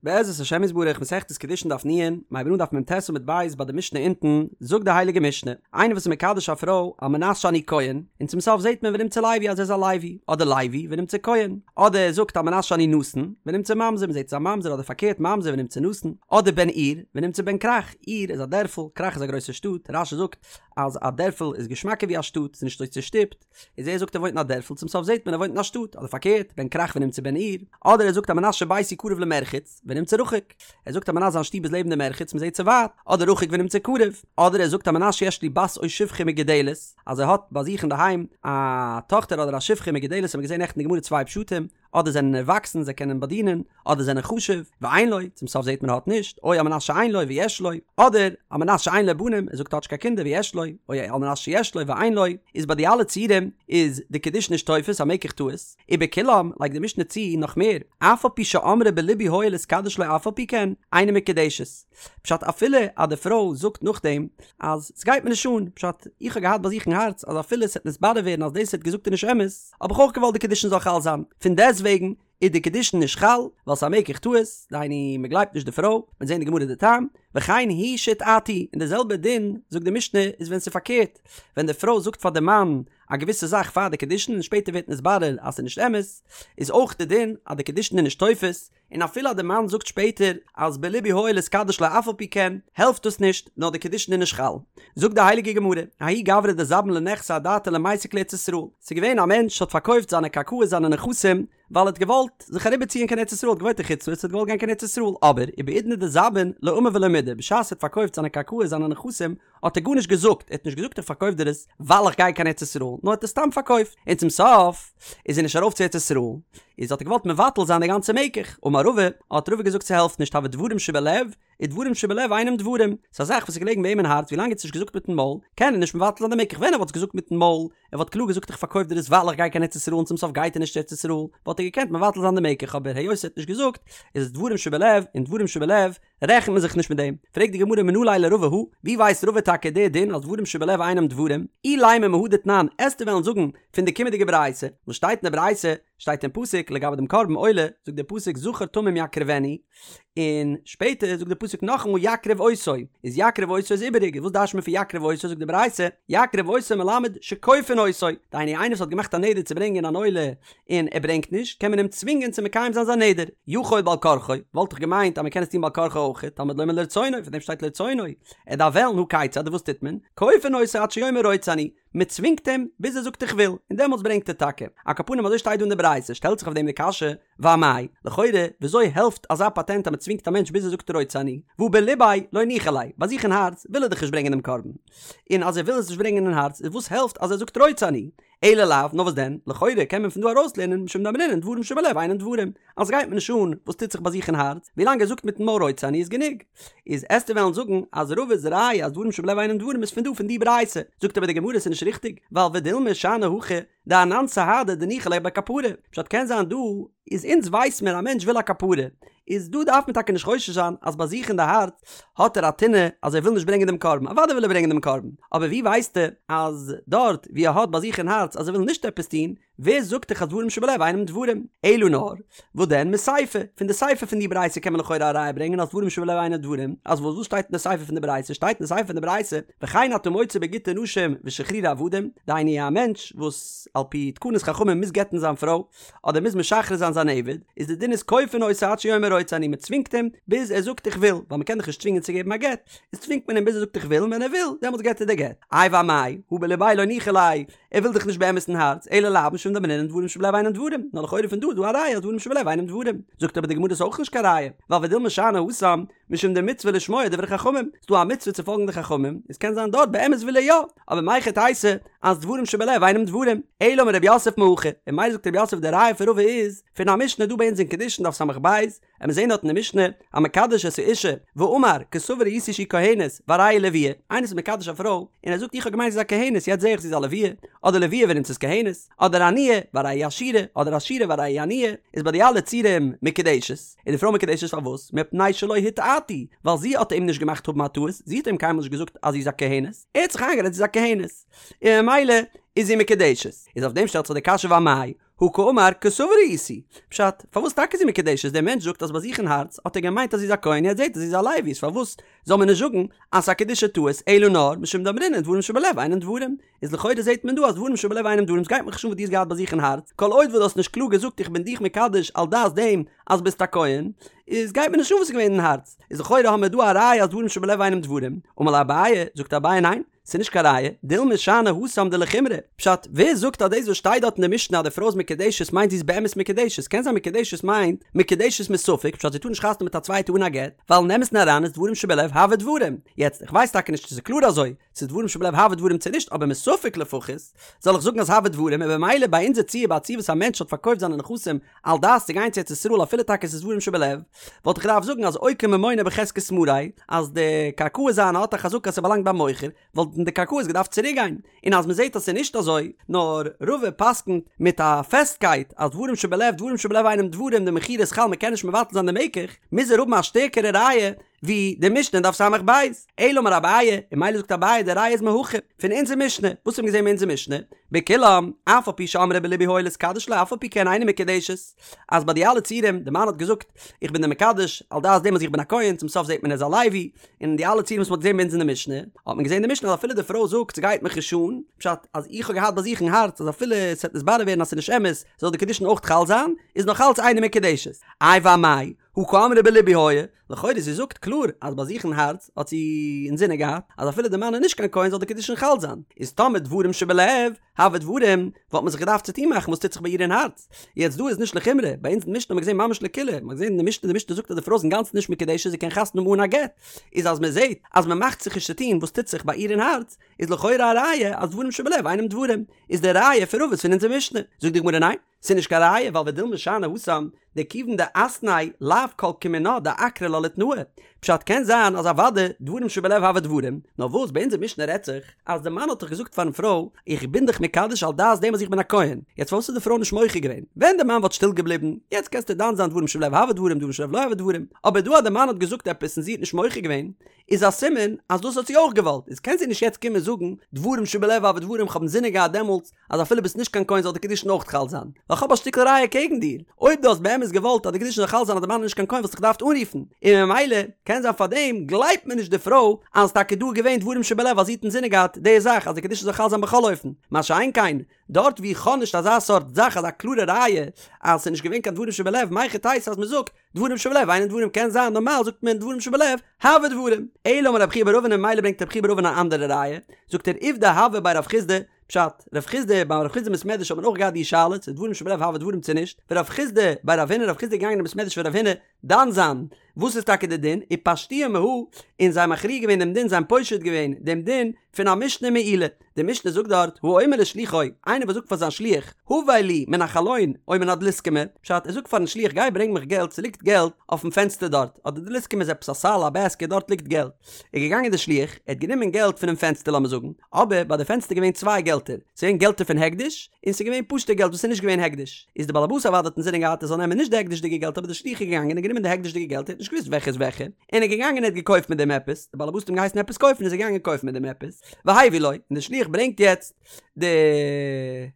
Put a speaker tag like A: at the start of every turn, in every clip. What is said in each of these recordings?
A: בעזרת השם יתברך מסכת קידושין דף נ, מ'הייבן אן דף מ"ט עמוד ב' ביי די משנה אונטן, זאגט די הייליגע משנה, איינער וואס איז מקדש א פרוי על מנת שאני כהן, און צום סוף זעט מען ונמצא לוי אז ער איז א לוי, אדער לוי ונמצא כהן, אדער ער זאגט על מנת שאני נתין, ונמצא ממזר, מ'זעט עס איז א ממזר אדער פארקערט ממזר ונמצא נתין, אדער בן עיר, ונמצא בן כרך, עיר איז א דערפל, כרך איז א גרויסע שטאט, רש"י זאגט אז א דערפל איז געשמאקער ווי א שטאט, ס'איז נישט אזוי צושטופט. איז ער זאגט ער וואוינט אין א דערפל צום סוף זעט מען ער וואוינט אין א שטאט אדער פארקערט בן כרך ונמצא בן עיר אדער ער זאגט על מנת שביתי קרוב למרחץ ונמצא רחוק ער זאגט על מנת זיין שטוב איז לעבן די מרחץ מען זעט ס'ווייט אדער רחוק ונמצא קרוב אדער ער זאגט על מנת שיש לי בת או שפחה מגודלת אז ער האט ביי זיך אינדערהיים א טאכטער אדער א שפחה מגודלת האט מען געזען נעכטן אין גמרא צוויי פשטים אדער זענען ערוואקסן זיי קענען באדינען, אדער זענען חשוב, ואין לו, צום סוף זעט מען ער האט נישט, או על מנת שאין לו ויש לו, אדער על מנת שאין לו בנים, ער זאגט ער האט נישט קיין קינדער ויש לו, או על מנת שיש לו ואין לו, איז ביי די אלע ציורים איז די קידושין נישט תופס א מקח טעות, ובכולם לייגט די משנה צו נאך מער, אף על פי שאמרה בלבי היה להתקדש לו אף על פי כן, אינה מקודשת. פשט אפילו אז די פרוי זאגט נאכדעם אז סגייט מיר נישט אן, פשט איך האב געהאט ביי זיך אין הארץ אז אפילו ס'עט נתברר ווערן אז דאס ער האט געזאגט איז נישט אמת, האב איך אויך געוואלט די קידושין זאל חל זיין, פון דעסטוועגן איז די קידושין נישט חל, ווייל ס'איז א מקח טעות, דהיינו מ'גלייבט נישט די פרוי, מ'וועט זען אין די גמרא די טעם, וכן היא שהטעתו, און די זעלבע דין זאגט די משנה איז ווען ס'איז פארקערט, ווען די פרוי זאגט פאר די מאן א געוויסע זאך פאר די קידושין און שפעטער ווערט נתברר אז ס'איז נישט אמת, איז אויך די דין אז די קידושין איז נישט תופס, און אפילו אז די מאן זאגט שפעטער אז בלבי היה להתקדש לה אף על פי כן, העלפט דאס נישט, נאר די קידושין איז נישט חל. זאגט די הייליגע גמרא, ההוא גברא דזבין לנכסיה אדעתיה למיסק לארץ ישראל, ס'איז געווען א מענטש האט פארקויפט זיינע קרקעות זיינע נכסים, ווייל ער האט געוואלט זיך אריבערציען קיין ארץ ישראל, ער האט געוואוינט אין חוץ לארץ ער האט געוואלט גיין קיין ארץ ישראל, אבער ובעידנא דזבין לא אמר ולא מידי, בשעת ער האט פארקויפט זיינע קרקעות זיינע נכסים, האט ער גארנישט געזאגט, ער האט נישט געזאגט איך פארקויף דיר עס ווייל איך גיי קיין ארץ ישראל, נאר ער האט עס סתם פארקויפט, און צום סוף איז ער נישט ארויף צו ארץ ישראל, איז האט ער געוואלט מבטל זיין די גאנצע מקח, אמר רבא, האט רבא געזאגט ס'העלפט נישט הוי דברים שבלב, ודברים שבלב אינם דברים, ס'איז א זאך וואס איז געלעגן ביי אים אין הארץ ווילאנג ער האט עס נישט געזאגט מיטן מויל, קען ער נישט מבטל זיין די מקח, ווען ער וואלט עס געזאגט מיטן מויל, ער וואלט קלאר געזאגט איך פארקויף דיר עס ווייל איך גיי קיין ארץ ישראל און צום סוף גייט ער נישט צו ארץ ישראל, וואלט ער געקענט מבטל זיין די מקח, אבער היות ער האט נישט געזאגט, איז עס דברים שבלב, און דברים שבלב רעכנט מען זיך נישט מיט דעם. פרעגט די גמרא מנא ליה לרבא הא, ווי ווייסט רבא טאקע די דין אז דברים שבלב אינם דברים? אילימא מהא דתנן, עסטו וועלן זאגן פון די קומענדיגע ברייתא, וואס שטייט אין די ברייתא, שטייט אין פסוק לגבי דעם קרבן עולה, זאגט דער פסוק זכר תמים יקריבנו, און שפעטער זאגט דער פסוק נאכאמאל יקריב אותו, איז יקריב אותו איז איבעריג, וואס דרש'ט מען פון יקריב אותו, זאגט די ברייתא, יקריב אותו מלמד שכופין אותו, דהיינו איינער וואס האט געמאכט א נדר צו ברענגען אן עולה און ער ברענגט נישט, קען מען אים צווינגען צו מקיים זיין זיין נדר. יכול בעל כרחו, וואלט איך געמיינט אז מען קען עס טון בעל כרחו אויך, תלמוד לומר לרצונו, פאר דעם שטייט לרצונו, ער דארף וועלן, הא כיצד, וואס טוט מען? כופין אותו עד שיאמר רוצה אני, מען צווינגט אים ביז ער זאגט איך וויל, און דעמאלטס ברענגט ער טאקע. על כל פנים אזוי שטייט דא אין די ברייתא, שטעלט זיך אויף דעם די קשיא, ואמאי, לכאורה, וויאזוי העלפט אזא פאטענט אז מען צווינגט א מענטש ביז ער זאגט רוצה אני, והא בליביה לא ניחא ליה, ביי זיך אין הארץ וויל ער דאך נישט ברענגען דעם קרבן. און אז ער וויל עס נישט ברענגען אין הארץ, איז וואס העלפט אז ער זאגט רוצה אני? אלא לאו, נאר וואס דען, לכאורה קען מען פון דא ארויסלערנען משום דאמרינן דברים שבלב אינן דברים, אז ס'גייט מיר נישט אן וואס טוט זיך ביי זיך אין הארץ, ווילאנג ער זאגט מיטן מויל רוצה אני איז גענוג. איז עסטו וועלן זאגן אז רבא'ס ראיה אז דברים שבלב אינן דברים איז פון דא פון די ברייתא, זאגט אבער די גמרא ס'איז נישט ריכטיג, ווייל ודילמא שאני הכא דאנן סהדי דניחא ליה בכפרה, פשט קען זיין דא איז אונז ווייס מיר א מענטש וויל א כפרה, איז דא דארף מען טאקע נישט חושש זיין אז ביי זיך אין די הארץ האט ער א טינא אז ער וויל נישט ברענגען דעם קרבן, אוודאי וויל ער ברענגען דעם קרבן, אבער ווי ווייסטו אז דארט ווי ער האט ביי זיך אין הארץ אז ער וויל נישט עפעס טון, ווער זאגט דיך אז דברים שבלב אינם דברים? אלא נאר, וואס דען מסיפא, פון די סיפא פון די ברייתא קען מען לכאורה א ראיה ברענגען אז דברים שבלב אינם דברים, אז וואס וואס שטייט אין די סיפא פון די ברייתא? שטייט אין די סיפא פון די ברייתא, וכן אתה מוצא בגיטי נשים ושחרורי עבדים, דהיינו א מענטש וואס על פי תקנת חכמים מוז גט'ן זיין פרוי, אדער מוז משחרר זיין זיין עבד, איז די דין איז כופין אותו עד שיאמר רוצה אני, מען צווינגט אים ביז ער זאגט איך וויל, ווייל מען קען דאך נישט צווינגען צו געבן א גט, איז צווינגט מען אים ביז ער זאגט איך וויל, און ווען ער וויל, דעמאלטס געבט ער די גט. איי ואמאי, הא בליביה לא ניחא ליה, ער וויל דאך נישט באמת אין הארץ, אלא לאו משום דאמרינן דברים שבלב אינם דברים, נאר לכאורה פון דא איז דא א ראיה אז דברים שבלב אינם דברים. זאגט אבער די גמרא ס'איז אויך נישט קיין ראיה, ווייל ודילמא שאני התם, משום דמצוה לשמוע דברי חכמים, ס'דא א מצוה צו פאלגן די חכמים, איז קען זיין דארט באמת וויל ער יא, אבער מהיכי תיתי אז דברים שבלב אינם דברים, אלא אמר רב יוסף מהכא, און ממילא זאגט רב יוסף די ראיה פון רבא איז פון א משנה דא ביי אונז אין קידושין דף ס"ב, און מיר זעהן דארט אין די משנה, המקדש את האשה, ואמר, כסבור הייתי שהיא כהנת, והרי היא לוויה, איינער איז מקדש א פרוי, און ער זאגט איך האב געמיינט זי איז א כהנת יעצט זעה איך זי איז א לוויה, אדער לוויה ונמצאת כהנת, אדער עניה, והרי היא עשירה, אדער עשירה והרי היא עניה, איז ביי די אלע ציורים מקודשת, איז די פרוי מקודשת פארוואס? מפני שלא הטעתו, ווייל זי האט אים נישט געמאכט האבן א טעות, זי האט אים קיינמאל נישט געזאגט אז זי איז א כהנת, ער האט זיך איינגערעדט זי איז א כהנת, און ממילא איז זי מקודשת. איז אויף דעם שטעלט זיך די קשיא ואמאי? הא קאמר כסבור הייתי. פשט, פארוואס טאקע איז זי מקודשת? דער מענטש זאגט אז ביי זיך אין הארץ האט ער געמיינט אז זי איז א כהן יעצט זעט ער זי איז א לוי איז פארוואס זאל מען נישט זאגן אז ס'איז א קידושי טעות אלא נאר משום דאמרינן דברים שבלב אינן דברים איז לכאורה זעט מען דא אז דברים שבלב אינם דברים ס'גייט מיך נישט אן וואס דו האסט געהאט ביי זיך אין הארץ כל עוד וואס דו האסט נישט קלאר געזאגט איך בין דיך מקדש על דעת דעם אז ביסט א כהן איז גייט מיר נישט אן וואס איז געווען אין הארץ איז לכאורה האמיר דא א ראיה אז דברים שבלב אינם דברים אמר ליה אביי זאגט אביי ניין ס'איז נישט קיין ראיה, דילמא שאני התם דלחומרא. פשט, ווער זאגט אז דאס וואס שטייט דארט אין די משנה אז די פרוי איז מקודשת מיינט זי איז באמת מקודשת? קען זיין מקודשת מיינט מקודשת מספק, פשט זי טאר נישט חתונה מיט א צווייטע אן א גט, ווייל אין אמת'ן אריין איז דברים שבלב הוו דברים. יעצט, איך ווייס טאקע נישט צו ס'איז קלאר אזוי, צו דברים שבלב הוו דברים צו נישט, אבער מספק לפחות, זאל איך זאגן אז הוו דברים, און במילא ביי אונזער ציור ביי א ציור וואס א מענטש האט פארקויפט זיינע נכסים על דעת צו גיין צו ארץ ישראל אפילו טאקע ס'איז דברים שבלב, וואלט איך געדארפט זאגן אז אוקי ממונא בחזקת מריה, אז די קרקעות זיינע האט א חזקה אז ס'באלאנגט ביים מוכר, וואלטן די קרקעות געדארפט צוריק גיין, און אז מ'זעט אז ס'איז נישט אזוי, נאר רבא פסק'נט מיט א פעסטקייט אז דברים שבלב דברים שבלב אינם דברים די מכירה איז חל מ'קען נישט מבטל זיין די מקח, מוז ער האבן א שטערקערע ראיה ווי די משנה אין דף ס"ב. אלא אמר אביי, און ממילא זאגט אביי די ראיה איז מהכא, פון אונזער משנה, וואס האבן געזען אין אונזער משנה? בכולם, אף על פי שאמרה בלבי היה להתקדש לו אף על פי כן אינה מקודשת, אז ביי די אלע ציורים, די מאן האט געזאגט, איך בין דיר מקדש, על דעת דעם אז איך בין א כהן, צום סוף זעט מען ער איז א לוי, און די אלע ציורים וואס מען האט געזען ביי אונז אין די משנה, האט מען געזען אין די משנה אז אפילו די פרוי זאגט ס'גייט מיך נישט אן, פשט אז איך האב געהאט ביי זיך אין הארץ אז אפילו ס'וועט נתברר ווערן אז ס'איז נישט אמת, זאל די קידושין אויך חל זיין, איז נאך אלץ אינה מקודשת. איי ואמאי, הא קאמרה בלבי היה, לכאורה זי זאגט קלאר אז ביי זיך אין הארץ האט זי אינזינען געהאט אז אפילו די מאן איז נישט קיין כהן זאל די קידושין חל זיין, איז טאמער דברים שבלב הוו דברים וואלט מען זיך געדארפט צוטון מאכן וואס טוט זיך ביי איר אין הארץ, יעצט דא איז נישט לחומרא, ביי אונז אין משנה האט מען געזען ממש לקולא, מען האט געזען אין די משנה די משנה זאגט אז די פרוי איז אינגאנצן נישט מקודשת זי קען חתונה האבן אן א גט, איז אז מען זעט אז מען מאכט זיך נישט צוטון וואס טוט זיך ביי איר אין הארץ, איז לכאורה א ראיה אז דברים שבלב אינם דברים, איז די ראיה פון רבא איז פון אונזער משנה, זאגט די גמרא ניין. ס'איז נישט קיין ראיה ווייל ודילמא שאני התם דכיון דאתניה לאו כל כמינה דעקרא לה לתנאה. פשט קען זיין אז אוודאי דברים שבלב הוו דברים, נאר וואס ביי אונזער משנה רעדט זיך אז די מאן האט דאך געזאגט פארן פרוי איך בין דיך מקדש על דעת דעם אז איך בין א כהן, יעצט פארוואס איז די פרוי נישט מוחה געווען? ווען די מאן וואלט שטיל געבליבן, יעצט קענסטו דן זיין דברים שבלב הוו דברים דברים שבלב לא הוו דברים, אבער דא אז די מאן האט געזאגט עפעס און זי האט נישט מוחה געווען, איז א סימן אז דאס האט זי אויך געוואלט, איז קען זי נישט יעצט קומען זאגן דברים שבלב הוו דברים כ'האב אינזינען געהאט דעמאלטס אז אפילו ביסט נישט קיין כהן זאל די קידושין אויך חל זיין, ווייל כ'האב א שטיקל ראיה קעגן דיר, אויב דו האסט באמת געוואלט אז די קידושין זאל חל זיין אז די מאן איז נישט קיין כהן וואלסט דיך געדארפט אנרופן, און ממילא קען זיין פארדעם גלייבט מען נישט די פרוי אז טאקע דא איז געווען דברים שבלב אז זי האט אינזינען געהאט די זאך אז די קידושין זאל חל זיין בכל אופן, מה שאין כן דארט ווי איך האב נישט אזא סארט זאך אזא קלארע ראיה אז ס'איז נישט געווען קיין דברים שבלב מהיכי תיתי אז מ'זאגט דברים שבלב אינן דברים קען זיין נארמאל זאגט מען דברים שבלב הוו דברים אלא אמר רב חייא בר אבין און ממילא ברענגט רב חייא בר אבין אן אנדערע ראיה זאגט ער עובדא הוה בי רב חסדא פשט רב חסדא ביי רב חסדא אין בית מדרש האט מען אויך געהאט די שאלה צו דברים שבלב הוו דברים צו נישט ורב חסדא בי רב הונא רב חסדא איז געגאנגען אין בית מדרש פון רב הונא דן זיין וואס איז טאקע די דין ופשטוה מהא און זיי מכריע געווען דעם דין זיי האבן פושט געווען דעם דין פון א משנה מעילה די משנה זאגט דארט, האומר לשלוחו, איינער וואס זאגט פאר זיין שליח, הבא לי מן החלון או מן הדלוסקמא, פשט, ער זאגט פארן שליח גיי ברענג מיך געלט ס'ליגט געלט אויפן פענסטער דארט, אדער דלוסקמא איז עפעס א סל א בעסקעט דארט ליגט געלט, איז געגאנגען די שליח, ער האט גענומען געלט פונעם פענסטער לאמיר זאגן, אבער ביי די פענסטער געווען צוויי געלטער, ס'איז געווען געלטער פון הקדש, און ס'איז געווען פשוטע געלט וואס איז נישט געווען הקדש, איז די באלעבאס אוודאי האט אינזינען געהאט ער זאל נעמען נישט די הקדש'דיגע געלט אבער די שליח איז געגאנגען און גענומען די הקדש'דיגע געלט ער האט נישט געוואוסט וועלכע איז וועלכע, און ער איז געגאנגען און ער האט געקויפט מיט דעם עפעס, די באלעבאס האט אים געהייסן עפעס קויפן איז ער געגאנגען קויפן מיט דעם עפעס, והביא לו, און די שליח ברענגט יעצט די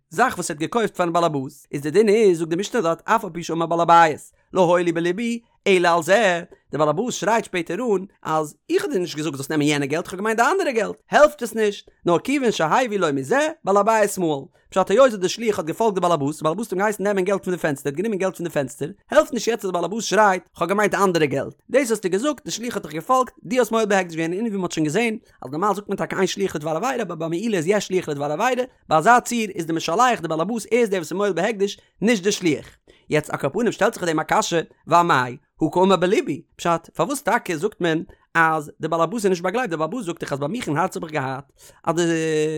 A: זאך וואס ער האט געקויפט פארן באלעבאס, איז די דין איז, זאגט די משנה דארט, אף על פי שאמר בעל הבית, לא היה לי בלבי אלא על זה, די באלעבאס שרייט שפעטער אן, אז איך האב דיר נישט געזאגט זאלסט נעמען יענע געלט, איך האב געמיינט די אנדערע געלט, העלפט עס נישט, נאר כיוון שהביא לו מזה, בעל הבית מהול. פשט היות די שליח האט געפאלגט די באלעבאס, די באלעבאס האט אים געהייסן נעמען געלט פון די פענסטער, ער האט גענומען געלט פון די פענסטער, העלפט נישט יעצט אז די באלעבאס שרייט, כ'האב געמיינט אנדערע געלט, דאס האסטו געזאגט, די שליח האט דיך געפאלגט, דו האסט מועל בהקדש געווען, און ווי מ'האט שוין געזען, אז נארמאל זאגט מען טאקע אין שליח לדבר עבירה, אבער ביי מעילה איז יש שליח לדבר עבירה, ביי אזא ציור איז די משלח די באלעבאס ער איז דער וואס איז מועל בהקדש, נישט די שליח. יעצט על כל פנים שטעלט זיך אויף דעם א קשיא, ואמאי, הא קאמר בלבי, פשט, פארוואס טאקע זאגט מען אז די באלעבאס איז נישט באגלייבט, די באלעבאס זאגט דאך אז ביי מיך אין הארץ האב איך געהאט אז די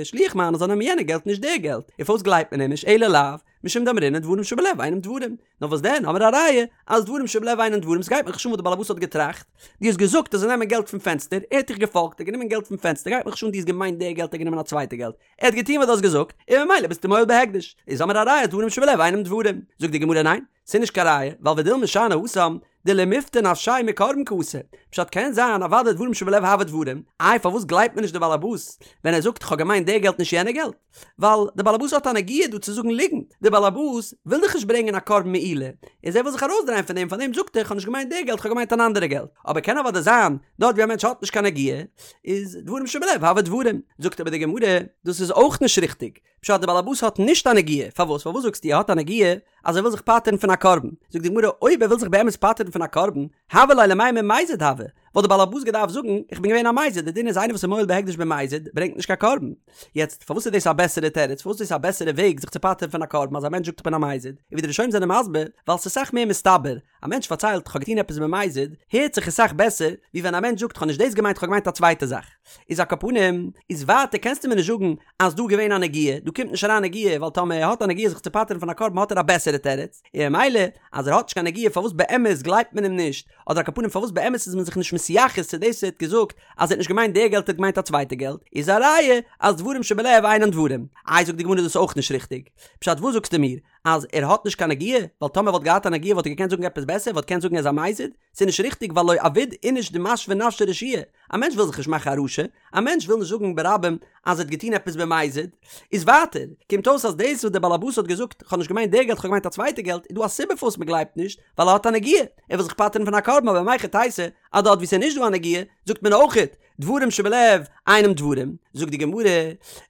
A: שליח מיינער זאל נעמען יענע געלט נישט די געלט, און פארוואס גלייבט מען אים נישט אלא לאו משום דאמרינן דברים שבלב אינם דברים, נאר וואס דען האמיר א ראיה אז דברים שבלב אינם דברים, ס'גייט מיך נישט אן וואס די באלעבאס האט געטראכט, דו האסט געזאגט ער זאל נעמען געלט פון פענסטער, ער האט דיך געפאלגט, ער האט גענומען געלט פון פענסטער, גייט מיך נישט אן דו האסט געמיינט די געלט ער האט גענומען א צווייטע געלט, ער האט געטון וואס דו האסט געזאגט, און ממילא ביסטו מועל בהקדש, איז האמיר א ראיה אז דברים שבלב אינם דברים, זאגט די גמרא ניין, ס'איז נישט קיין ראיה, ווייל ודילמא שאני התם דלמיפטר נפשיה מקרבן קאתי. פשט קען זיין אוודאי דברים שבלב הוו דברים, איי פארוואס גלייבט מען נישט די באלעבאס ווען ער זאגט כ'האב געמיינט די געלט נישט יענע געלט? ווייל די באלעבאס האט א נגיעה דא צו זאגן ליגנט, די באלעבאס וויל דאך נישט ברענגען א קרבן מעילה, איז ער וויל זיך ארויסדרייען פון דעם פארדעם זאגט ער כ'האב נישט געמיינט די געלט כ'האב געמיינט אן אנדערע געלט, אבער קען אוודאי זיין דארט ווי א מענטש האט נישט קיין נגיעה איז דברים שבלב הוו דברים, זאגט אבער די גמרא דאס איז אויך נישט ריכטיג, פשט די באלעבאס האט נישט א נגיעה, פארוואס פארוואס זאגסטו ער האט א נגיעה אז ער וויל זיך פטר'ן פון א קרבן, זאגט די גמרא אויב ער וויל זיך באמת פטר'ן פון א קרבן, הוה ליה למימר מזיד הוה, וואלט די באלעבאס געדארפט זאגן איך בין געווען א מזיד, די דין איז איינער וואס איז מועל בהקדש במזיד ברענגט נישט קיין קרבן, יעצט פארוואס איז דאס א בעסערע תירוץ, פארוואס איז דאס א בעסערע וועג זיך צו פטר'ן פון א קרבן אז א מענטש זאגט איך בין א מזיד, און ווי די ראשונים זענען מסביר, ווייל ס'איז סאך מער מסתבר, א מענטש פארציילט כ'האב געטון עפעס במזיד, הערט זיך עס סאך בעסער ווי ווען א מענטש זאגט כ'האב נישט דאס געמיינט כ'האב געמיינט א צווייטע זאך. איז על כל פנים, איז ווייטער קענסטו מיר נישט זאגן אז דא געווען א נגיעה, דא קומט נישט אריין נגיעה ווייל טאמער ער האט א נגיעה זיך צו פטר'ן פון א קרבן האט ער א בעסערע תירוץ, און ממילא אז ער האט נישט קיין נגיעה פארוואס באמת גלייבט מען אים נישט, אדער על כל פנים פארוואס באמת איז מען זיך נישט מתייחס צו דאס וואס ער האט געזאגט אז ער האט נישט געמיינט די געלט ער האט געמיינט א צווייטע געלט, איז א ראיה אז דברים שבלב אינן דברים. איי זאגט די גמרא דאס איז אויך נישט ריכטיג. פשט וואס זאגסטו מיר? אז ער האט נישט קיין נגיעה, ווייל טאמער וואלט געהאט א נגיעה וואלט ער געקענט זאגן עפעס בעסער, וואלט געקענט זאגן ער איז א מזיד, ס'איז נישט ריכטיג ווייל לא עביד איניש דמשוי נפשיה רשיעא, א מענטש וויל זיך נישט מאכן א רשע, א מענטש וויל נישט זאגן ברבים אז ער האט געטון עפעס במזיד, איז ווייטער, קומט אויס אז דאס וואס דער בעל הבית האט געזאגט כ'האב נישט געמיינט די געלט כ'האב געמיינט א צווייטע געלט איז דא א סיבה פארוואס מ'גלייבט נישט, ווייל ער האט א נגיעה, ער וויל זיך פטר'ן פון א קרבן אבער מהיכי תיתי אז דארט וואו ס'איז נישט דא א נגיעה זאגט מען אויכעט דברים שבלב אינם דברים, זאגט די גמרא,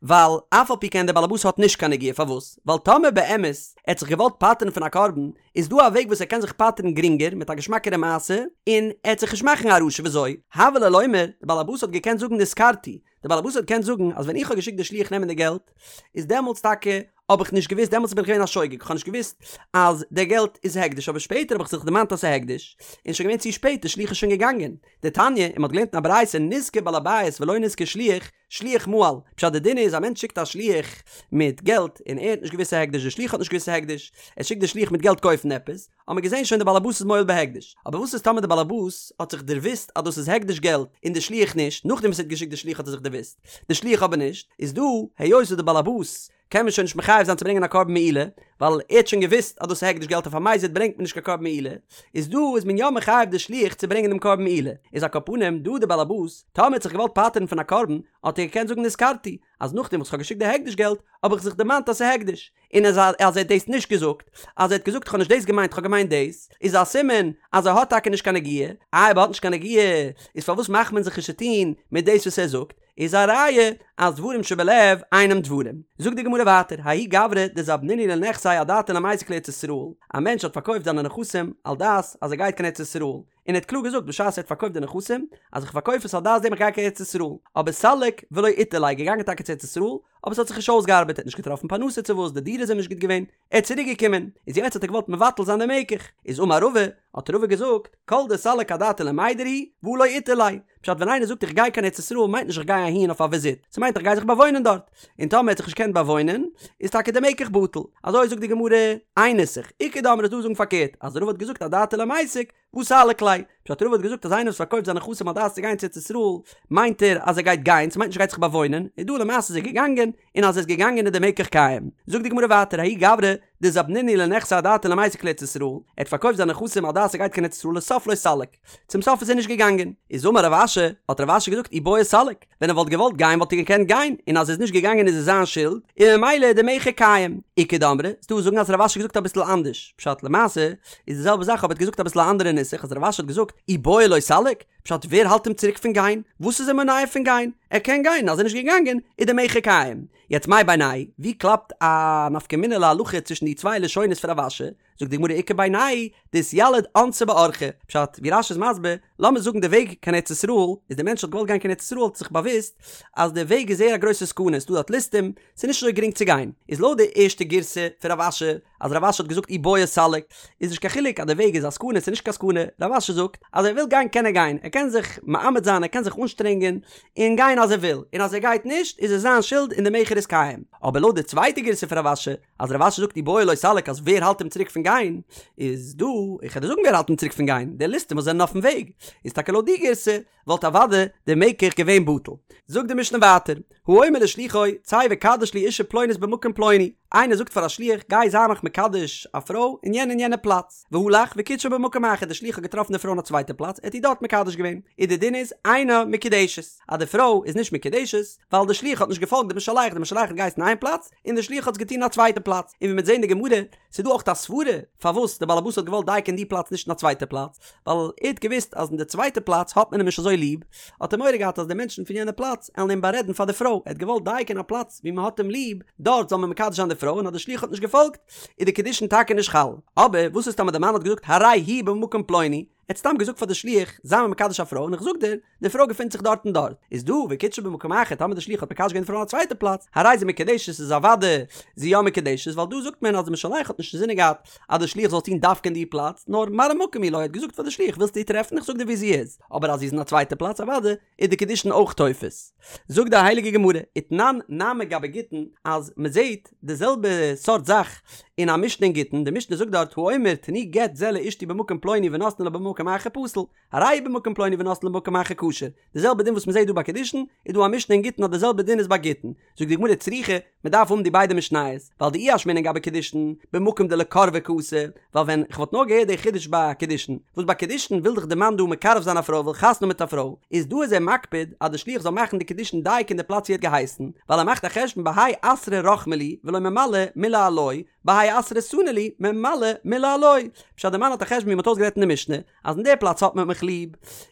A: ווייל אף על פי כן דער בעל הבית האט נישט קיין נגיעה, פארוואס? ווייל טאמער באמת ער האט זיך געוואלט פטר'ן פון א קרבן, איז דא א וועג וואס ער קען זיך פטר'ן גרינגער מיט א געשמאקערע מעשה, און ער וועט זיך נישט מאכן א רשע, וויאזוי? הוה ליה לומר, דער בעל הבית האט געקענט זאגן נזכרתי, דער בעל הבית האט געקענט זאגן אז ווען איך האב געשיקט די שליח נעמען די געלט, איז דעמאלטס טאקע האב איך נישט געוואוסט, דעמאלטס בין איך געווען א שוגג, איך האב נישט געוואוסט אז די געלט איז הקדש, אבער שפעטער האב איך זיך דערמאנט אז ס'איז הקדש, און שוין געווען צו שפעט, די שליח איז שוין געגאנגען. דתניא, און מ'האט געלערנט אין א ברייתא נזכר בעל הבית ולא נזכר שליח, שליח מעל, פשט די דין איז א מענטש שיקט א שליח מיט געלט און ער האט נישט געוואוסט ס'איז הקדש, די שליח האט נישט געוואוסט ס'איז הקדש, ער שיקט די שליח מיט געלט קויפן עפעס, האט מען געזען שוין די בעל הבית איז מועל בהקדש, אבער וואס איז טאמער די בעל הבית האט זיך דערוואוסט אז דאס איז הקדש געלט און די שליח נישט, נאכדעם וואס ער האט געשיקט די שליח האט ער זיך דערוואוסט, די שליח אבער נישט, איז דא היות וואס די בעל הבית קען מען שוין נישט מחייב זיין צו ברענגען א קרבן מעילה, ווייל ער האט שוין געוואוסט אז דאס איז הקדש געלט אויף א מזיד ברענגט מען נישט קיין קרבן מעילה, איז דא איז מען יא מחייב די שליח צו ברענגען דעם קרבן מעילה, איז על כל פנים דא די בעל הבית, טאמער האט זיך געוואלט פטר'ן פון א קרבן, האט ער געקענט זאגן נזכרתי, אז נאכדעם וואס כ'האב געשיקט די הקדש געלט, האב איך זיך דערמאנט אז ס'איז הקדש, און אז ער האט דאס נישט געזאגט, אז ער האט געזאגט כ'האב נישט דאס געמיינט כ'האב געמיינט דאס, איז א סימן אז ער האט טאקע נישט קיין נגיעה, איי אויב ער האט נישט קיין נגיעה, איז פארוואס מאכט מען זיך נישט צוטון מיט דאס וואס ער זאגט, איז א ראיה אז דברים שבלב אינם דברים. זאגט די גמרא ווייטער, ההוא גברא דזבנינהו לנכסיה אדעתיה למיסק לארץ ישראל, א מענטש האט פארקויפט זיינע נכסים על דעת אז ער גייט קיין ארץ ישראל, און ער האט קלאר געזאגט בשעת ער האט פארקויפט די נכסים אז איך פארקויף עס על דעת דעם איך גיי קיין ארץ ישראל, אבער סליק ולא איתדר ליה, געגאנגען טאקע צו ארץ ישראל, אבער עס האט זיך נישט אויסגעארבעט, ער האט נישט געטראפן פרנסה צו וואס, די דירה איז אים נישט גוט געווען, ער איז צוריק געקומען, איז יעצט האט ער געוואלט מבטל זיין די מקח, איז אמר רבא, האט רבא געזאגט, כל דסליק אדעתיה למידר הוא, והא לא איתדר ליה, פשט ווען איינער זאגט איך גיי קיין ארץ ישראל מיינט נישט איך גיי אהין אויף א וויזיט, ס'מיינט איך גיי זיך באוואוינען דארט, און טאמער ער האט זיך נישט געקענט באוואוינען, איז טאקע די מקח בטל, אזוי זאגט די גמרא, איין נוסח, איכא דאמרי איז דא זאגן פארקערט, אז רבא האט געזאגט אדעתיה למיסק, והא סליק ליה, פשט רבא האט געזאגט אז איינער וואס פארקויפט זיינע נכסים על דעת צו גיין צו ארץ ישראל, מיינט ער אז ער גייט גיין, ס'מיינט נישט ער גייט זיך באוואוינען, איז דא למעשה איז ער געגאנגען, און אז ער איז געגאנגען איז די מקח קיים. זאגט די גמרא ווייטער ההוא גברא דזבנינהו לנכסיה אדעתיה למיסק לארץ ישראל, ער האט פארקויפט זיינע נכסים על דעת ער גייט קיין ארץ ישראל לסוף לא סליק, צום סוף איז ער נישט געגאנגען. איז אמר רב אשי, האט רב אשי געזאגט אי בעי סליק, ווען ער וואלט געוואלט גיין וואלט ער געקענט גיין, און אז ער איז נישט געגאנגען איז עס זיין שולד, און ממילא איז די מכר קיים. איכא דאמרי, ס'דא וואס זאגן אז רב אשי האט געזאגט אביסל אנדערש, פשט למעשה איז די זעלבע זאך אבער ער האט געזאגט אביסל א אנדערע נוסח אז רב אשי האט געזאגט אי בעי לא סליק, פשט ווער האלט אים צוריק פון גיין? וואס איז אים מונע פון גיין? ער קען גיין, אז ער איז נישט געגאנגען איז די מכר קיים. יעצט מאי בינייהו, ווי קלאפט א נפקא מינה להלכה צווישן די צוויי לשונות פון רב אשי? זאגט די גמרא איכא בינייהו דאתיליד אונסא באורחא, פשט ווי רש"י איז מסביר, לאמיר זאגן די וועג קיין ארץ ישראל, איז די מענטש האט געוואלט גיין קיין ארץ ישראל האט זיך באוואוסט אז די וועג איז זייער א גרויסע סכנה, ס'דא דארט ליסטים, ס'איז נישט אזוי גרינג צו גיין, איז לויט די ערשטע גירסא פון רב אשי, אז רב אשי האט געזאגט אי בעי סליק, איז נישט קיין חילוק אז די וועג איז א סכנה ס'איז נישט קיין סכנה, רב אשי זאגט אז ער וויל גיין קען ער גיין, ער קען זיך מאמץ זיין ער קען זיך אנשטרענגען און גיין אז ער וויל, און אז ער גייט נישט איז עס זיין שולד און די מכר איז קיים, אבער לויט די צווייטע גירסא פון רב אשי, אז רב אשי זאגט אי בעי לא סליק אז ווער האלט אים צוריק פון גיין, איז דא, איך וועל דיר זאגן ווער האלט אים צוריק פון גיין, די ליסטים וואס זענען אויפן וועג, איז טאקע לויט די גירסא, וואלט אוודאי די מקח געווען בטל. זאגט די משנה ווייטער, האומר לשלוחו, צא וקדש לי אשה פלונית במקום פלוני, איינער זאגט פאר א שליח גיי זיי מיך מקדש א פרוי אין יענע און יענע פלאץ, והלך וקידשה במקום אחר די שליח האט געטראפן די פרוי אין א צווייטע פלאץ ער האט איר דארט מקדש געווען, איז די דין איז אינה מקודשת אז די פרוי איז נישט מקודשת ווייל די שליח האט נישט געפאלגט די משלח, די משלח האט געהייסן איין פלאץ און די שליח האט עס געטון אין א צווייטע פלאץ, און ווי מ'וועט זען אין די גמרא ס'איז דא אויך א סברה פארוואס די באלעבאס האט געוואלט דייקא אין די פלאץ נישט אין א צווייטע פלאץ, ווייל ער האט געוואוסט אז אין די צווייטע פלאץ האט מען אים נישט אזוי ליב, האט ער מורא געהאט אז די מענטשן פון יענע פלאץ עלן אים בארעדן פאר די פרוי, ער האט געוואלט דייקא אין א פלאץ ווי מען האט אים ליב, דארט זאל מען מקדש זיין די פרוי, און אז די שליח האט נישט געפאלגט, איז די קידושין טאקע נישט חל. אבער וואס איז טאמער די מאן האט געזאגט הרי היא במקום פלוני, ער האט סתם געזאגט פאר די שליח זיי מיר מקדש א פרוי און איך זאג דיר, די פרוי געפינט זיך דארט און דארט, איז דא וקידשה במקום אחר טאמער די שליח האט מקדש געווען די פרוי אין א צווייטע פלאץ, הרי זו מקודשת איז אוודאי זי יא מקודשת, ווייל דא זאגט מען אז די משלח האט נישט אינזינען געהאט אז די שליח זאל טון דווקא אין די פלאץ, נאר מראה מקום הוא לו, ער האט געזאגט פאר די שליח ווילסט איר טרעפן איך זאג דיר ווי זי איז, אבער אז זי איז אין א צווייטע פלאץ אוודאי איז די קידושין אויך תופס. זאגט די הייליגע גמרא, ותנן נמי גבי גיטין, אז מען זעט די זעלבע סארט זאך אין א משנה אין גיטין, די משנה זאגט דארט האומר תנו גט זה לאשתי במקום פלוני ונותנו לה במקום אחר פסול, הרי הוא במקום פלוני ונותנו לה במקום אחר כשר, די זעלבע דין וואס מען זעט דא ביי קידושין, איז דא א משנה אין גיטין אז די זעלבע דין איז ביי גיטין. זאגט די גמרא צריכא, מען דארף האבן די ביידע משניות, ווייל דאי אשמעינן גבי קידושין, במקום דלקורבה קאתי, ווייל ווען כ'וואלט נאר געהערט די חידוש ביי קידושין, וואס ביי קידושין וויל דאך די מאן דא מקרב זיין א פרוי וויל חתונה האבן מיט א פרוי, איז דא איז ער מקפיד אז די שליח זאל מאכן די קידושין דייקא אין די פלאץ ווי ער האט געהייסן, ווייל ער מאכט א חשבון בהאי אתרא רחמי לי ולא ממלו מילי עילואי, בהאי אתרא סנו לי ממלו מילי עילואי. פשט די מאן האט א חשבון ווי מען האט אויסגערעדט אין די משנה, אז אין די פלאץ האט מען מיך ליב,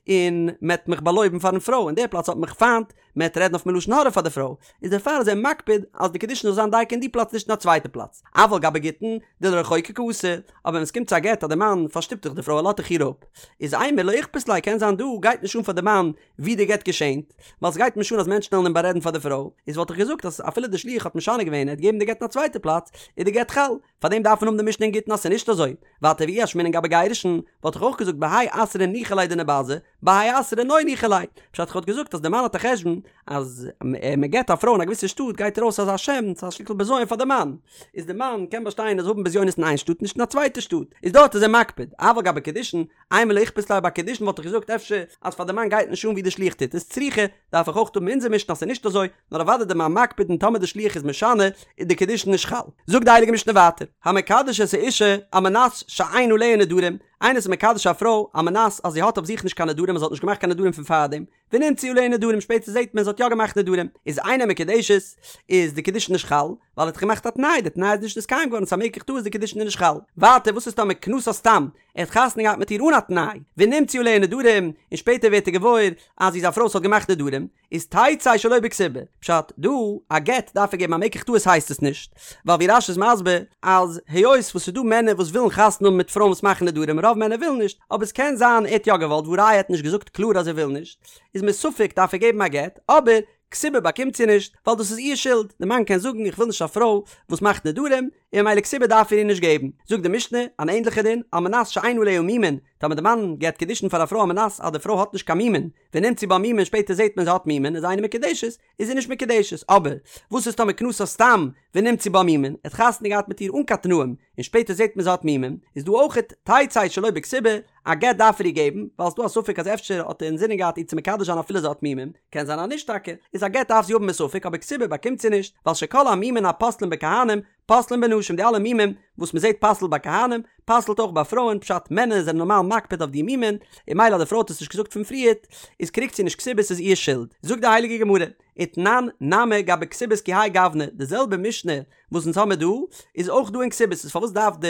A: און מען וועט מיך באלויבן פארן פרוי, אין די פלאץ האט מען מיך פיינט, מען וועט רעדן אויף מיר לשון הרע פאר די פרוי, איז דערפאר איז ער מקפיד אז די קידושין זאל זיין דייקא אין די פלאץ נישט אין א צווייטע פלאץ, אבל גבי גיטין דלרחוקי קאתי, אבער ווען עס קומט צו א גט אז די מאן פארשטופט דאך די פרוי ער לאזט דאך איר אפ, איז אימר לא איכפת ליה קען זיין דא גייט נישט אן פאר די מאן ווי די גט געשענט, ווייל סגייט נישט אן אז מענטשן וועלן אים בארעדן פאר די פרוי, איז וואלט איך געזאגט אז אפילו די שליח האט משנה געווען ער האט געגעבן די גט אין א צווייטע פלאץ איז די גט חל, פארדעם דארף מען האבן די משנה אין גיטין אז ס'איז נישט אזוי, ווייטער ואי אשמעינן גבי גירושין, וואלט איך אויך געזאגט בהאי אתרא ניחא ליה דניבזי, בהאי אתרא לא ניחא ליה, פשט איך וואלט געזאגט אז די מאן האט א חשבון אז מען גט א פרוי אין א געוויסע שטאט גייט ארויס אזא שם, ס'איז א שטיקל בזיון פאר די מאן, איז די מאן קען באשטיין אז האבן בזיונות אין איין שטאט נישט אין א צווייטע שטאט, איז דארט איז ער מקפיד, אבל גבי קידושין, אימר לא איכפת ליה ביי קידושין וואלט איך געזאגט אפשר אז פאר די מאן גייט נישט אן ווי די שליח טוט עס צריכא, דארף איך אויך האבן אונזער משנה אז ס'איז נישט אזוי, נאר אוודאי די מאן מקפיד און טאמער די שליח איז משנה איז די קידושין נישט חל. זאגט די הייליגע משנה ווייטער, המקדש את האשה על מנת שאין עליה נדרים, איינער איז מקדש א פרוי על מנת אז זי האט אויף זיך נישט קיין נדרים אז זי האט נישט געמאכט קיין נדרים פון פארדעם, ונמצאו עליה נדרים שפעטער זעט מען זי האט יא געמאכט נדרים, איז אינה מקודשת, איז די קידושין נישט חל, ווייל ער האט געמאכט א תנאי, די תנאי איז נישט נתקיים געווארן ס'איז א מקח טעות די קידושין איז נישט חל. ווייטער וואס איז טאמער כנסה סתם, ער האט חתונה געהאט מיט איר אן א תנאי, ונמצאו עליה נדרים, און שפעטער ווערט ער געוואויר אז זי איז א פרוי וואס האט געמאכט נדרים, איז תצא שלא בכתובה, פשט, דא, א גט דארף ער געבן א מקח טעות הייסט עס נישט, ווייל ווי רש"י איז מסביר, אז היות וואס ס'איז דא מענער וואס ווילן חתונה האבן מיט פרויען וואס מאכן נדרים, רוב מענער ווילן נישט, אבער ס'קען זיין ער האט יא געוואלט והא ראיה ער האט נישט געזאגט קלאר אז ער וויל נישט, איז מספק דארף ער געבן א גט, אבער כתובה באקומט זי נישט, ווייל דאס איז איר שולד, די מאן קען זאגן איך וויל נישט א פרוי וואס מאכט נדרים, און ממילא כתובה דארף ער איר נישט געבן. זאגט די משנה, אן ענדליכע דין, על מנת שאין עליה מומין, טאמער די מאן געבט קידושין פאר א פרוי על מנת אז די פרוי האט נישט קיין מומין, ונמצאו בה מומין שפעטער זעט מען זי האט מומין איז אינה מקודשת, איז זי נישט מקודשת, אבער וואס איז טאמער כנסה סתם ונמצאו בה מומין, ער האט חתונה געהאט מיט איר אן קיין תנאים, און שפעטער זעט מען זי האט מומין, איז דא אויכעט תצא שלא בכתובה, א גט דארף ער איר געבן, ווייל ס'דא א ספק אז אפשר האט ער אינזינען געהאט איר צו מקדש זיין אפילו זי האט מומין, קען זיין אז נישט טאקע, איז א גט דארף זי האבן מספק אבער כתובה באקומט זי נישט, ווייל שכל המומין הפוסלין בכהנים, פוסלין בנשים די אלע מומים וואס מען זעט פסל'ט ביי כהנים, פסל'ט אויך ביי פרויען, פשט מענער זענען נארמאל מקפיד אויף די מומין, און ממילא אז די פרוי האט עס נישט געזאגט פון פריערט, איז קריגט זי נישט כתובה ס'איז איר שולד. זאגט די הייליגע גמרא, ותנן נמי גבי כתובות כי האי גוונא, די זעלבע משנה וואס אונז האמיר דא, איז אויך דא אין כתובות, איז פארוואס דארף די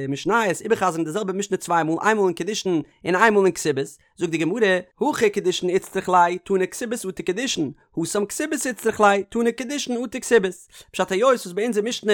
A: משניות איבערחזר'ן די זעלבע משנה צוויי מאל, איינמאל אין קידושין און איינמאל אין כתובות? זאגט די גמרא, הכא קידושין איצטריך ליה, תנא כתובות אטו קידושין, התם כתובות איצטריך ליה, תנא קידושין אטו כתובות. פשט היות וואס ביי אונזער משנה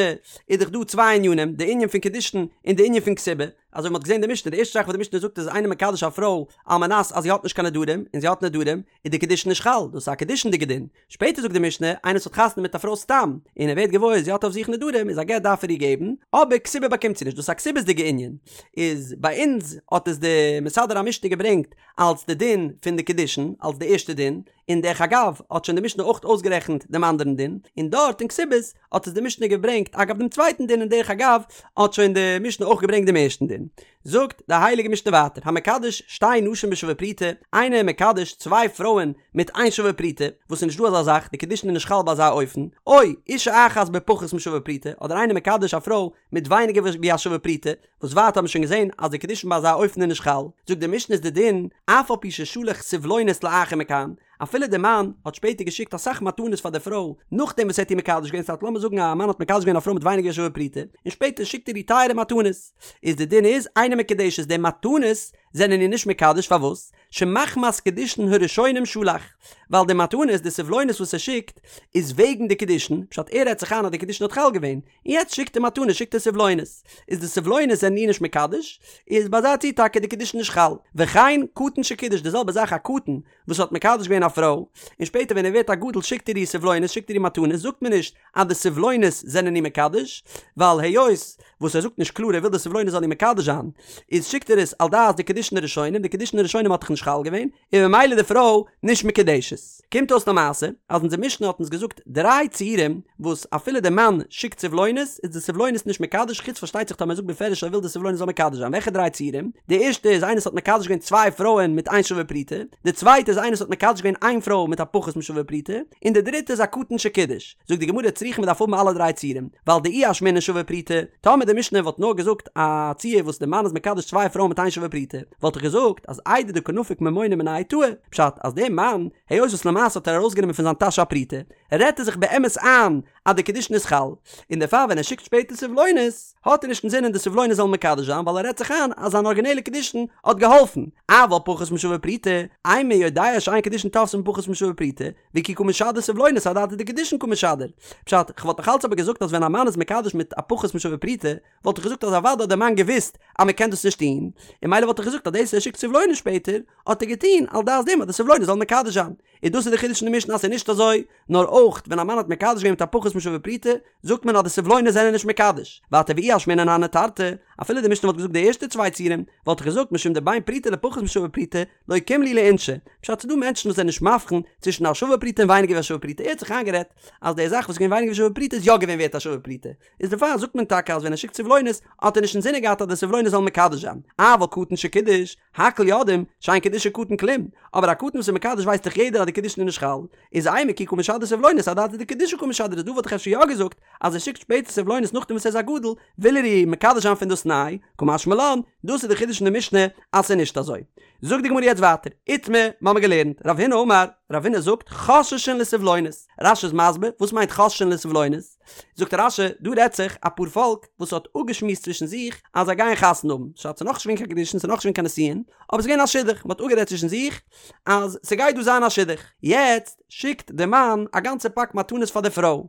A: איז דאך דא צוויי ענינים, די ענין פון קידושין און די ענין פון כתובה, אזוי ווי מ'האט געזען די משנה, די ערשטע זאך וואס די משנה זאגט איז איינער מקדש א פרוי על מנת אז זי האט נישט קיין נדרים, און זי האט נדרים, איז די קידושין נישט חל, דאס איז א קידושין'דיגע דין. שפעטער זאגט די משנה, איינער וואס האט חתונה מיט א פרוי סתם, און ער ווערט געוואויר זי האט אויף זיך נדרים, איז א גט דארף ער איר געבן, אבער כתובה באקומט זי נישט, דאס איז א כתובות'דיגע ענין, איז ביי אונז האט עס די מסדר המשנה געברענגט אלס די דין פון די קידושין, אלס די ערשטע דין, און דרך אגב האט שוין די משנה אויך אויסגערעכנט דעם אנדערן דין, און דארט אין כתובות האט עס די משנה געברענגט אגב דעם צווייטן דין און דרך אגב האט שוין די משנה אויך געברענגט דעם ערשטן דין. זאגט די הייליגע משנה ווייטער המקדש שתי נשים בשווה פרוטה, איינער איז מקדש צוויי פרויען מיט איין שווה פרוטה, וואס איז נישט דא אזא זאך, די קידושין איז נישט חל ביי אזא אופן, או אישה אחת בפחות משווה פרוטה, אדער איינער מקדש א פרוי מיט ווייניגער ווי א שווה פרוטה, וואס ווייטער האט מען שוין געזען אז די קידושין ביי אזא אופן איז נישט חל, זאגט די משנה איז די דין, אף על פי ששלח סבלונות לאחר מכאן, אפילו די מאן האט שפעטער געשיקט אסאך מתנות פאר די פרוי נאכדעם וואס ער האט איר מקדש געווען, ס'הייסט לאמיר זאגן א מאן האט מקדש געווען א פרוי מיט ווייניגער ווי א שווה פרוטה, און שפעטער שיקט ער איר טייערע מתנות, איז די דין איז אינה מקודשת די מתנות זענען איר נישט מקדש פארוואס? שמחמת קידושין הראשונים שלח, ווייל די מתנות די סבלונות וואס ער שיקט איז וועגן די קידושין, פשט ער רעדט זיך איין אז די קידושין האט חל געווען, און יעצט שיקט ער מתנות שיקט ער סבלונות, איז די סבלונות זענען איר נישט מקדש, איז ביי אזא ציור טאקע די קידושין נישט חל, וכן קטן שקידש די זעלבע זאך א קטן וואס האט מקדש געווען א פרוי, און שפעטער ווען ער ווערט א גדול שיקט ער איר סבלונות שיקט ער איר מתנות זאגט מען נישט אז די סבלונות זענען איר מקדש, ווייל היות וואס ער זאגט נישט קלאר ער וויל די סבלונות זאלן איר מקדש זיין, איז שיקט ער עס על דעת די קידושין הראשונים, די קידושין הראשונים האט דאך נישט חל געווען, און ממילא די פרוי נישט מקודשת. קומט אויס למעשה אז אונזער משנה האט אונז געזאגט דריי ציורים וואס אפילו די מאן שיקט סבלונות איז די סבלונות נישט מקדש חוץ פארשטייט זיך טאמער ער זאגט בפירוש ער וויל די סבלונות זאל מקדש זיין וועלכע דריי ציורים? די ערשטע איז איינער וואס האט מקדש געווען צוויי פרויען מיט איין שווה פרוטה, די צווייטע איז איינער וואס האט מקדש געווען איין פרוי מיט א פחות משווה פרוטה, און די דריטע איז א קטן שקידש. זאגט די גמרא צריכא מ'דארף האבן אלע דריי ציורים, ווייל דאי אשמעינן שווה פרוטה, טאמער די משנה וואלט נאר געזאגט א ציור וואס די מאן איז מקדש צוויי פרויען מיט איין שווה פרוטה, וואלט איך געזאגט אז איידי דקא נפיק ממונא מיניה טעי, פשט אז דער מאן, היות וואס למעשה האט ער ארויסגענומען פון זיין טאש א פרוטה, רעדט ער זיך באמת איין אז די קידושין איז חל, און דערפאר ווען ער שיקט שפעטער סבלונות, האט ער נישט אינזינען די סבלונות זאלן מקדש זיין ווייל ער רעדט זיך איין אז זיין ארגינעלע קידושין האט געהאלפן, אבל פחות משווה פרוטה, אימא יודע שאין קידושין תופסין בפחות משווה פרוטה, וכי קא משדר סבלונות אדעתא דקידושין קא משדר. פשט, כ'וואלט נאך אלץ אבער געזאגט אז ווען א מאן איז מקדש מיט א פחות משווה פרוטה, וואלט איך געזאגט אז אוודאי האט דער מאן געוואוסט אז מען קען דאס נישט טון, און ממילא וואלט איך געזאגט אז דאס ער שיקט סבלונות שפעטער, האט ער געטון על דעת דעם אז די סבלונות זאלן מקדש זיין. און דאס איז די חידוש אין די משנה אז ס'איז נישט אזוי, נאר אויך ווען א מאן האט מקדש געווען מיט א פחות משווה פרוטה, זאגט מען אז די סבלונות זענען נישט מקדש. ווייטער ואי אשמעינן הני תרתי, אפילו די משנה וואלט געזאגט די ערשטע צוויי ציורים, וואלט איך געזאגט משום דבין פרוטה לפחות משווה פרוטה, לא קים להו לאינשי, פשט ס'דא מענטשן וואס זענען נישט מבחין צווישן א שווה פרוטה און ווייניגער ווי א שווה פרוטה, ער האט זיך איינגערעדט אז די זאך וואס איז געווען ווייניגער ווי שווה פרוטה איז יא געווען ווערט א שווה פרוטה, איז דערפאר זאגט מען טאקע אז ווען ער שיקט סבלונות האט ער נישט אינזינען געהאט אז די סבלונות זאלן מקדש זיין, אבל קטן שקידש, הכל יודעים, שאין קידושי קטן כלום, אבער א קטן וואס איז מקדש ווייסט דאך יעדער אז די קידושין איז נישט חל, איז אימא כי קא משדר סבלונות אדעתא דקידושי קא משדר איז דא וואלט איך אפשר יא געזאגט אז ער שיקט שפעטער סבלונות נאכדעם וואס ער איז א גדול וויל ער איר מקדש זיין פון דאס ניי, קא משמע לן, דאס איז די חידוש אין די משנה אז ס'איז נישט אזוי. זאגט די גמרא יעצט ווייטער, איתמר, מ'האמיר געלערנט, רב הונא אמר, רב הונא זאגט, חוששין לסבלונות. רש"י איז מסביר, וואס מיינט חוששין לסבלונות? זאגט רש"י, דא רעדט זיך א פאר פאלק וואס האט אפגעשמועסט צווישן זיך אז זיי גייען חתונה האבן, ס'האט נאך נישט געווען קיין קידושין, ס'איז נאך נישט געווען קיין נישואין, אבער ס'איז געווען א שידוך, מ'האט אפגערעדט צווישן זיך אז ס'גייט דא זיין א שידוך. יעצט שיקט די מאן א גאנצע פאק מתנות פאר די פרוי,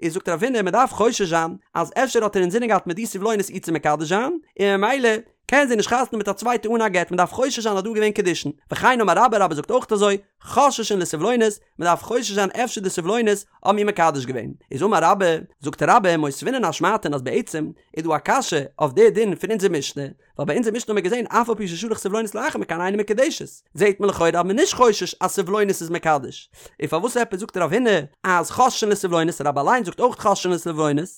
A: איז זאגט רב הונא, מ'דארף חושש זיין אז אפשר האט ער אינזינען געהאט מיט די סבלונות איר צו מקדש זיין, און ממילא קען זי נישט חתונה מיט א צווייטע אן א גט, מ'דארף חושש זיין אז דא איז געווען קידושין. וכן אמר רבה, רבה זאגט אויך אזוי, חוששין לסבלונות, מ'דארף חושש זיין אפשר די סבלונות האבן איר מקדש געווען. איז אמר רבה, זאגט רבה, מותבינן אשמעתין אז בעצם איז דא א קשיא אויף די דין פון אונזער משנה, ווייל ביי אונזער משנה האבן מיר געזען אף על פי ששלח סבלונות לאחר מכאן אינה מקודשת, זעט מען לכאורה אז מ'איז נישט חושש אז סבלונות איז מקדש, און פארוואס עפעס זאגט רב הונא אז חוששין לסבלונות, רבה אליין זאגט אויך חוששין לסבלונות,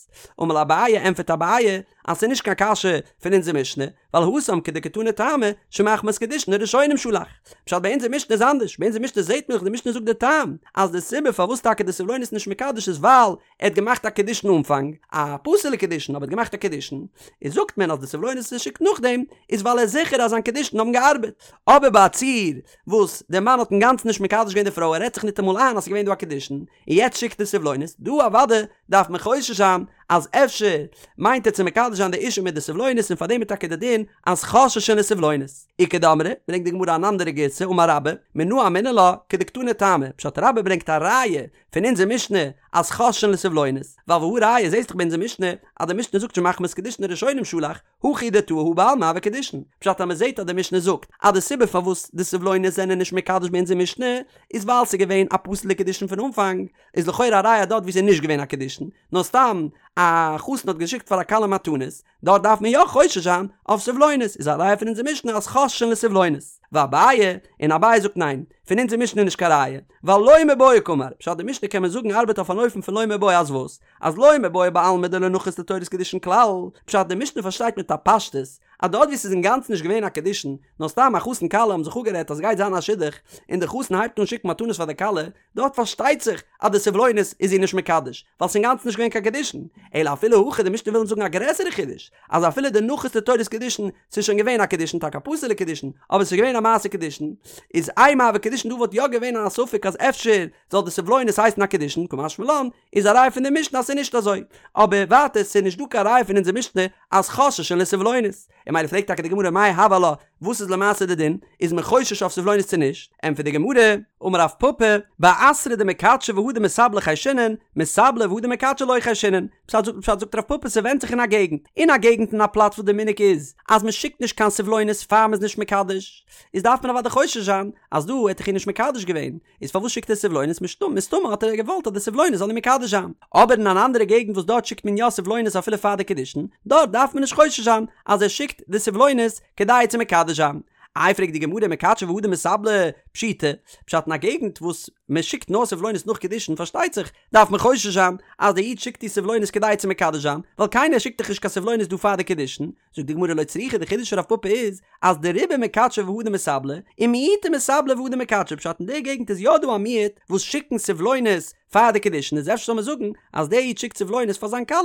A: אמר ליה אביי ענפערט אביי אז ס'איז נישט קיין קשיא פון אונזער משנה, ווייל התם כדקתני טעמא שמחמת קידושין הראשונים שלח. פשט ביי אונזער משנה איז אנדערש, ביי אונזער משנה זעט מען דאך די משנה זאגט די טעם אז די סיבה פארוואס טאקע די סבלונות איז נישט מקדש איז ווייל ער האט געמאכט א קידושין אנפאנג, א פסול'ע קידושין אבער ער האט געמאכט א קידושין, איז זאגט מען אז די סבלונות וואס ער שיקט נאכדעם איז ווייל ער איז זיכער אז זיין קידושין האבן געארבעט. אבער ביי א ציור וואס דער מאן האט אינגאנצן נישט מקדש געווען די פרוי ער רעדט זיך ניטאמאל איין אז ס'איז געווען דא א קידושין, און יעצט שיקט ער סבלונות, דא אוודאי דארף מען חושש זיין אז אפשר מיינט ער צו מקדש זיין די אישה מיט די סבלונות און פארדעם איז טאקע די דין אז חוששין לסבלונות. איכא דאמרי, ברענגט די גמרא אן אנדערע גירסא אמר רבה, מנא אמינא לה, כדקתני טעמא, פשט רבה ברענגט א ראיה פון אונזער משנה אז חוששין לסבלונות, ווייל והא ראיה זעסט דאך ביי אונזער משנה אז די משנה זאגט שמחמת קידושין הראשונים שלח, הכא הוא דטעי הא בעלמא הוו קידושין, פשט אז מ'זעט אז די משנה זאגט אז די סיבה פארוואס די סבלונות זענען נישט מקדש ביי אונזער משנה איז ווייל ס'איז געווען א פסול'ע קידושין פון אנפאנג, איז לכאורה א ראיה דארט ווי ס'איז נישט געווען א קידושין, נאר סתם א חתן האט געשיקט פאר א כלה מתנות, דארט דארף מען יא חושש זיין אויף סבלונות, איז א ראיה פון אונזער משנה אז חוששין לסבלונות. ואביי, און אביי זאגט ניין, פון אונזער משנה איז נישט קיין ראיה, ווייל לא מיבעיא קאמר, פשט די משנה קען מען זאגן ארבעט אויף אן אופן פון לא מיבעיא אז וואס? אז לא מיבעיא בעלמא דלא נחית לתורת קידושין כלל, פשט די משנה פארשטייט מיט א פשטות אז דארט ווי ס'איז אינגאנצן נישט געווען א קידושין, נאר סתם א חתן כלה האבן זיך אפגערעדט אז ס'גייט זיין א שידוך, און די חתן הייבט אן שיקן מתנות פאר די כלה, דארט פארשטייט זיך אז די סבלונות איז איר נישט מקדש, ווייל ס'איז אינגאנצן נישט געווען קיין קידושין, אלא אפילו הכי די משנה וויל אונז זאגן א גרעסערע חידוש, אז אפילו דנחית לתורת קידושין, ס'איז שוין געווען א קידושין, טאקע א פסול'ע קידושין, אבער ס'איז געווען א מעשה קידושין, איז אימא הוו קידושין דא וואלט יא געווען א ספק אז אפשר זאל די סבלונות הייסן א קידושין, קא משמע לן, איז א ראיה פון די משנה אז ס'איז נישט אזוי. אבער ווייטער ס'איז נישט דא קיין ראיה פון אונזער משנה אז חוששין לסבלונות. און ממילא פרעגט טאקע די גמרא מאי הוי עלה, וואס איז למעשה די דין, איז מען חושש אויף סבלונות צו נישט? ענטפערט די גמרא, אמר רב פפא, באתרא דמיקדשי והדר מסבלי חיישינן, מסבלי והדר מקדשי לא חיישינן. פשט זאגט פשט זאגט רב פפא ס'ווענדט זיך אין א געגנט. אין א געגנט אין א פלאץ וואס די מנהג איז אז מ'שיקט נישט קיין סבלונות פאר מ'איז נישט מקדש, איז דארף מען אוודאי חושש זיין אז דא האט ער איר נישט מקדש געווען, איז פארוואס שיקט ער סבלונות מסתמא האט ער געוואלט אז די סבלונות זאל אים מקדש זיין. אבער אין אן אנדערע געגנט וואס דארט שיקט מען יא סבלונות אפילו פאר די קידושין, דארט דארף מען נישט חושש זיין אז ער שיקט די סבלונות כדי צו מקדש זיין. איי פרעגט די גמרא מקדשי והדר מסבלי פשיטא, פשט אין א געגנט וואס מען שיקט נאר סבלונות נאך קידושין פארשטייט זיך דארף מען חושש זיין אז דער איד שיקט די סבלונות כדי צו מקדש זיין, ווייל קיינער שיקט דאך נישט קיין סבלונות דא פאר די קידושין, זאגט די גמרא לא צריכא די חידוש פון רב פפא איז אז דרובא מקדשי והדר מסבלי ומיעוטא מסבלי והדר מקדשי פשט אין די געגנט איז יא דא א מיעוט וואס שיקן סבלונות פאר די קידושין איז אפשר זאל מען זאגן אז דער איד שיקט סבלונות פאר זיין כלה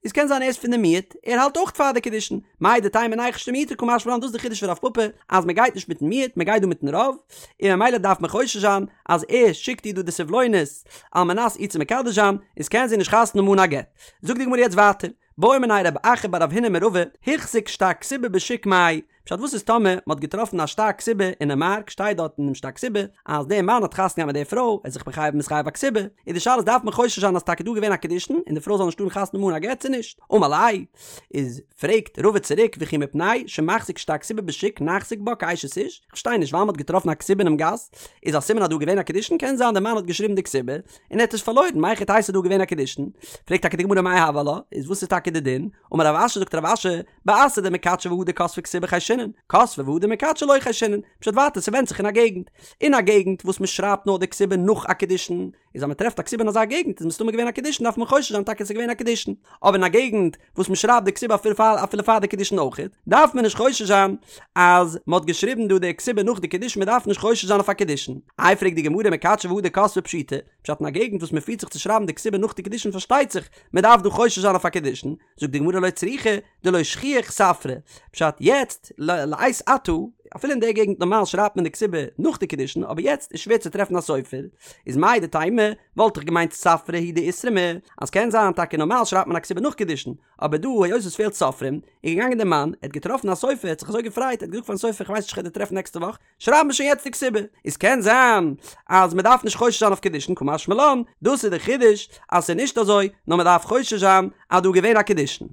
A: איז קען זיין ער איז פון די מיעוט ער האלט אויך פאר די קידושין מהו דתימא ניחוש למיעוטא קא משמע לן דאס איז די חידוש פון רב פפא אז מען גייט נישט מיטן מיעוט מען גייט דא מיטן רוב און ממילא דארף מען חושש זיין אז ער שיקט איר דא די סבלונות על מנת איר צו מקדש זיין איז קען זי נישט חתונה האבן אן א גט זאגט די גמרא יעצט ווייטער בעא מיניה רב אחא בר רב הונא מרבא, הוחזק שטר כתובה בשוק מהו, פשט וואס איז טאמער מען האט געטראפן א שטר כתובה אינעם מארק שטייט דארט אינעם שטר כתובה אז דער מאן האט חתונה געהאט מיט דער פרוי ער איז זיך מחייב מתחייב א כתובה איז די שאלה איז דארף מען חושש זיין אז טאקע דא געווען א קידושין און די פרוי זאל נישט טארן חתונה האבן אן א גט צו נישט אמר ליה איז פרעגט רבא צוריק וכי מפני שמחזיק שטר כתובה בשוק נחזיק בה כאשת איש איך פארשטיי נישט ווייל מען האט געטראפן א כתובה אינעם גאס איז א סימן אז דא געווען א קידושין קען זיין דער מאן האט געשריבן די כתובה און ער האט עס פארלוירן, מהיכי תיתי ס'איז דא געווען א קידושין? פרעגט טאקע די גמרא מאי הוי עלה, איז וואס איז טאקע די דין? אמר רב אשי זאגט רב אשי, באתרא דמקדשי והדר כתבי כתובה חיישינן, כתבי והדר מקדשי לא חיישינן, פשט ווייטער ס'ווענדט זיך אין א געגנט, אין א געגנט וואס מ'שרייבט נאר די כתובה נאך א קידושין, איז אז מ'טרעפט א כתובה אין אזא געגנט איז מסתמא געווען א קידושין דארף מען חושש זיין טאקע ס'איז געווען א קידושין, אבער אין א געגנט וואס מ'שרייבט די כתובה אפילו פאר אפילו פאר די קידושין אויכעט, דארף מען נישט חושש זיין אז מ'האט געשריבן דא די כתובה נאך די קידושין מ'דארף נישט חושש זיין אויף א קידושין. איי פרעגט די גמרא מקדשי והדר כתבי פשיטא, פשט אין א געגנט וואס מ'פירט זיך צו שרייבן די כתובה נאך די קידושין פארשטייט זיך מ'דארף דא חושש זיין אויף א קידושין, זאגט די גמרא לא צריכא דלא שכיח ספרא, פשט יעצט לעת עתה אפילו אין די געגנט נארמאל שרייבט מען די כתובה נאך די קידושין אבער יעצט איז שווער צו טרעפן א סופר, איז מהו דתימא וואלט איך געמיינט ספרא הוא דאיתרמי אז קען זיין טאקע נארמאל שרייבט מען א כתובה נאך קידושין אבער דא היות עס פעלט סופרים איז געגאנגען דער מאן ער האט געטראפן א סופר ער האט זיך אזוי געפרייט ער האט געזאגט פארן סופר איך ווייס נישט איך וועל דיר טרעפן נעקסטע וואך שרייב מיר שוין יעצט די כתובה איז קען זיין אז מען דארף נישט חושש זיין אויף קידושין קא משמע לן דאס איז די חידוש אז ס'איז נישט אזוי נאר מען דארף חושש זיין אז דא איז געווען א קידושין.